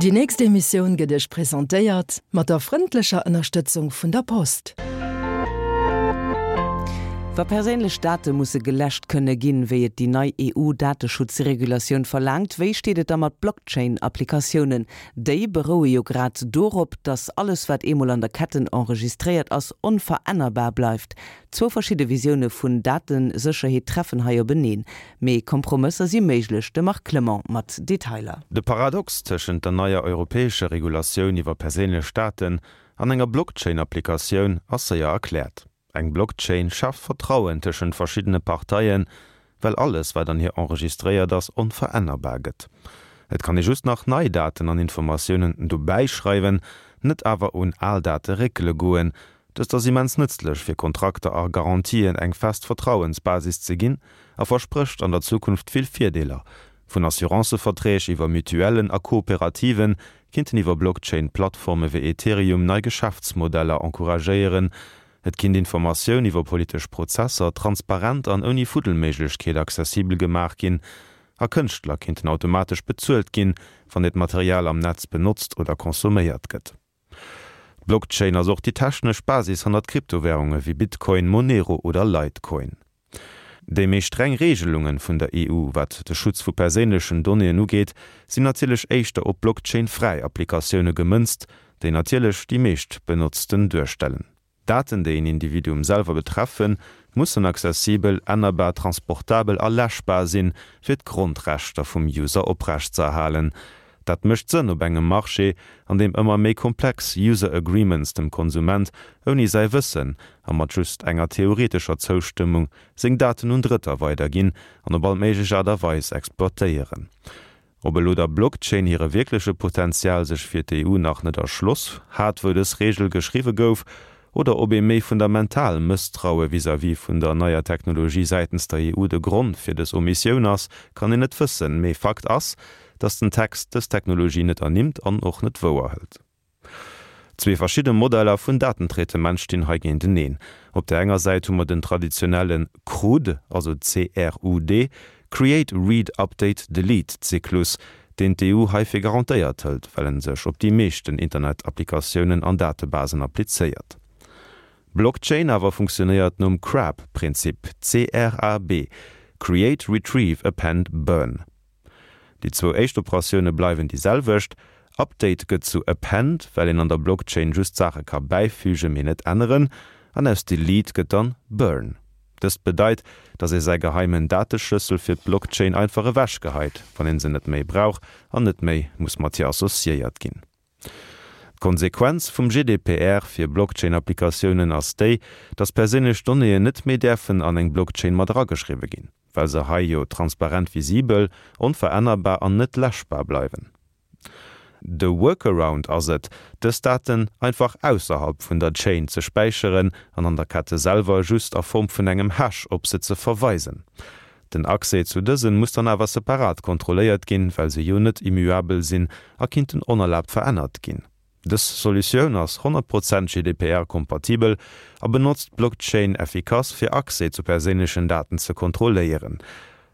Déi nächst Emissioun gëtt Iech presentéiert mat der frëndlecher Ënnerstëtzung vun der Post. Wa perséinlech Date musse geläscht kënne ginn, wéi et déi nei EU-Dateschutzregulatioun verlaangt, wéi steet et da mat Blockchain-Applikatiounen? Déi beroue jo grad dorop, datt alles wat eemol an der Ketten enregistréiert ass, onverännerbar bleift. Zwou verschidde Visioune vun Datesécherheet treffen hei openeen. Mee Kompromësser si méiglech. De Marc Clement mat Detailer. De Paradox tëschent der neier europäescher Regulatioun iwwer perséinlech Daten an enger Blockchain-Applikatioun ass séier erkläert. Eng Blockchain schaaft Vertrauen tëschent verschiddene Parteien, well alles, wat an hir enregistréiert ass, onverännerbar gëtt. Et kann ee just nach nei Daten an Informatiounen dobäi schreiwen, net awer un al Date réckele goen. Dëst ass immens nëtzlech fir Kontrakter a Garantien eng fest Vertrauensbasis ze ginn a versprécht an der Zukunft vill Virdeeler. Vun Assurancëverträg iwwer Mutuellen a Kooperativen kinnten iwwer Blockchain-Plattforme wéi Ethereum nei Geschäftsmodeller encouragéieren. Et kinnt Informatioun iwwer politesch Prozesser transparent an ouni Fuddelméiglechkeet accessibel gemaach ginn a Kënschtler kinnten automatesch bezuelt ginn, wann hiert Material am Netz benotzt oder consomméiert gëtt. D'Blockchain ass och déi technesch Basis hannert Kryptowärunge wéi Bitcoin, Monero oder Litecoin. Déi méi streng Reegelunge vun der EU, wat de Schutz vu perséinlechen Donnéeën ugeet, sinn natierlech éischter op Blockchain-fräi Applikatioune gemënzt, déi natierlech déi meescht benotzten duerstellen. Daten, déi een Individuum selwer betreffen, mussen accessibel, ännerbar, transportabel a läschbar sinn, fir d'Grondrechter vum User oprechtzeerhalen. Dat mécht Sënn op engem Marché, an deem ëmmer méi komplex User Agreements dem Konsument ouni säi Wëssen a mat just enger theoretescher Zoustëmmung seng Daten un Drëtter weiderginn an op all méiglech Aart a Weis exploitéieren. Ob elo der Blockchain hire wierkleche Potenzial sech fir d'EU nach net erschloss hat, wou dës Reegel geschriwwe gouf, oder ob ee méi fundamental Mësstraue vis-à-vis vun der neier Technologie säitens der EU de Grond fir dës Omissioun ass, kann een net wëssen. Mee Fakt ass, datt den Text dës Technologie net ernimmt an och net wouerhëlt. Zwee verschidde Modeller vun Datentraitement stinn hei géinteneen. Op der enger Säit hu mer den traditionelle CRUD, also C-R-U-D, Create, Read, Update, Delete, Zyklus, deen d'EU hei fir garantéiert hëlt, well en sech op déi meeschten Internetapplikatiounen an Datebasen applizéiert. Blockchain awer funktionéiert nom CRAB-Prinzip, C-R-A-B, Create, Retrieve, Append, Burn. Déi zwou éischt Operatioune bleiwen déi selwecht, Update gëtt zu Append, well een an der Blockchain just Saache ka bäifügen, mee net änneren, an aus Delete gëtt dann Burn. Dëst bedeit, dass ee säi geheimen Dateschlëssel fir d'Blockchain einfach ewechgeheit, wann een se net méi brauch an net méi muss mat hir associéiert ginn. D'Konsequenz vum GDPR fir Blockchain-Applikatiounen ass déi, dass perséinlech Donnéeën net méi däerfen an eng Blockchain mat erageschriwwe ginn, well se hei jo transparent visibel, onverännerbar an net läschbar bleiwen. De Workaround ass et, dës Daten einfach ausserhalb vun der Chain ze späicheren an an der Kette selwer just a Form vun engem Hash op se ze verweisen. Den Accès zu dësen muss dann awer separat kontrolléiert ginn, well se jo net immuabel sinn a kinnten onerlaabt verännert ginn. Dës Solutioun ass 100 Prozent GDPR-kompatibel a benotzt d'Blockchain effikass fir Accès zu perséinlechen Daten ze kontrolléieren.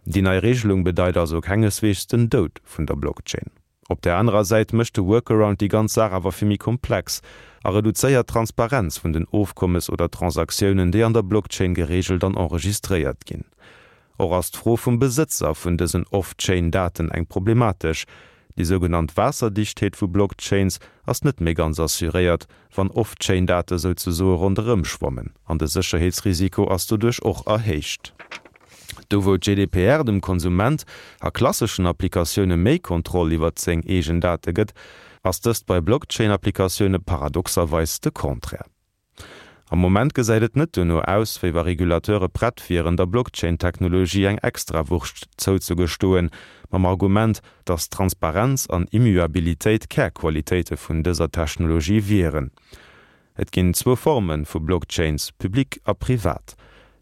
Déi nei Regelung bedeit also kengesweegs den Doud vun der Blockchain. Op där anerer Säit mécht de Workaround déi ganz Saach awer vill méi komplex a reduzéiert d'Transparenz vun den Ofkommes oder Transaktiounen, déi an der Blockchain gereegelt an enregistréiert ginn. Och ass d'Fro vum Besëtzer vun dësen Off-Chain-Daten eng problematesch. Déi sougenannt Waasserdichtheet vu Blockchains ass net méi ganz assuréiert, wann Off-Chain-Date souzesoe ronderëm schwammen, an de Sécherheetsrisiko ass doduerch och erhéicht. Do wou d'GDPR dem Konsument a klasseschen Applikatioune méi Kontroll iwwert seng eegen Date gëtt, ass dëst bei Blockchain-Applikatioune paradoxerweis de Contraire. Am Moment gesäit et net dono aus, wéi wa Regulateure prett wieren, der Blockchain-Technologie eng Extrawurscht zouzegestoen, mam Argument, datt Transparenz an Immuabilitéit Kärqualitéite vun dëser Technologie wieren. Et ginn zwou Forme vu Blockchains, public a privat.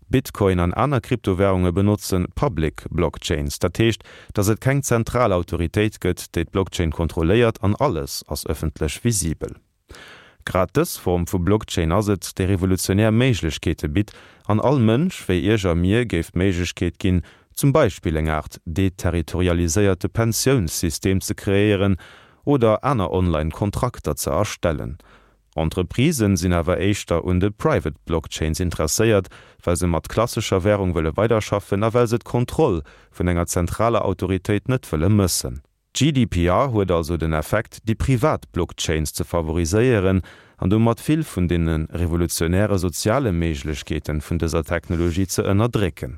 Bitcoin an aner Kryptowärunge benotze public Blockchains, dat heescht, datt et keng zentral Autoritéit gëtt, déi d'Blockchain kontrolléiert an alles ass ëffentlech visibel. Grad dës Form vu Blockchain ass et, déi revolutionär Méiglechkeete bitt an all Mënsch, wéi Iech a mir, géif d'Méiglechkeet ginn, zum Beispill eng Aart deterritorialiséierte Pensiounssystem ze kreéieren. oder aner online Kontrakter ze erstellen. Entreprisen sinn awer éischter un de Private Blockchains interesséiert, well se mat klassescher Wärung wëlle weiderschaffen a well se d'Kontroll vun enger zentraler Autoritéit net wëlle mëssen. GDPR huet also den Effekt, déi privat Blockchains ze favoriséieren an domat vill vun deene revolutionäre soziale Méiglechkeeten vun dëser Technologie ze ënnerdrécken.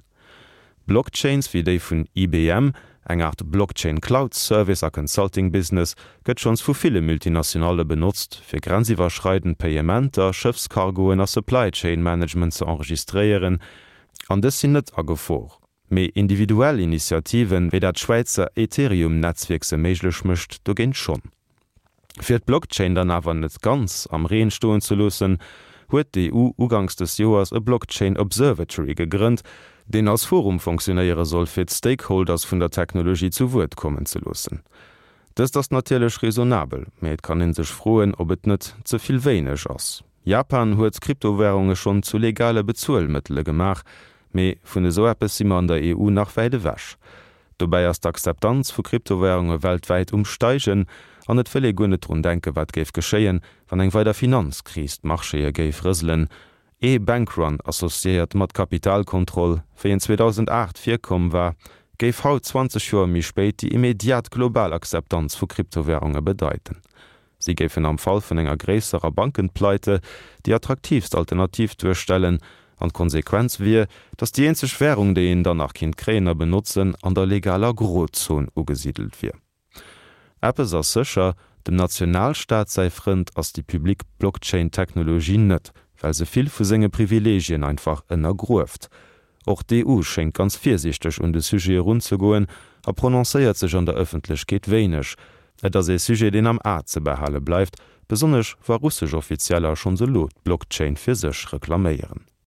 Blockchains wéi déi vun IBM, eng Art Blockchain Cloud Service a Consulting Business, gëtt schonns vu ville Multinationalle benotzt, fir grenziwwerschreidend Payementer, Schëffscargoen a Supply Chain Management ze enregistréieren, an dës sinn net a Gefor. Mee individuell Initiativen, wéi dat Schwäizer Ethereum-Netzwierk se méiglech mécht, dogéint schonn. Fir d'Blockchain dann awer net ganz am Reen stoen ze loossen, huet d'EU uganks des Joers e Blockchain Observatory gegrënnt, deen als Forum fonctionéiere soll, fir d'Stakeholders vun der Technologie zu Wuert kommen ze loossen. Dëst ass natierlech raisonnabel, mee et kann ee sech froen, ob et net ze vill wéineg ass. Japan huet Kryptowärunge schonn zu legale Bezuelmëttele gemaach, Mee vun esou eppes si mer an der EU nach wäit ewech. Dobäi ass d'Akzeptanz vu Kryptowärunge weltwäit um Steigen an et wëll ee guer net drun denken, wat géif geschéien, wann eng weider Finanzkris d'Marchéë géif rëselen. Ee Bankrun associéiert mat Kapitalkontroll, wéi en 2008 virkomm war, géif haut, 20 Joer méi spéit, déi immediat global Akzeptanz vu Kryptowärunge bedeiten. Si géifen am Fall vun enger gréisserer Bankenpleite déi attraktiivst Alternativ duerstellen, an d'Konsequenz wier, datt déi eenzeg Wärung, déi een dann nach kinnt kréien a benotzen, an der legaler Grozon ugesidelt wier. Eppes ass sécher, Dem Nationalstaat säi Frënd ass déi public Blockchain-Technologie net, well se vill vu senge Privileegien einfach ënnergrueft. Och d'EU schéngt ganz virsiichteg un de Sujet erunzegoen a prononcéiert sech an der Ëffentlechkeet wéineg. Et ass ee Sujet, deen am A ze behale bleift, besonnesch wa russesch Offizieller schonns elo d'Blockchain fir sech reklaméieren.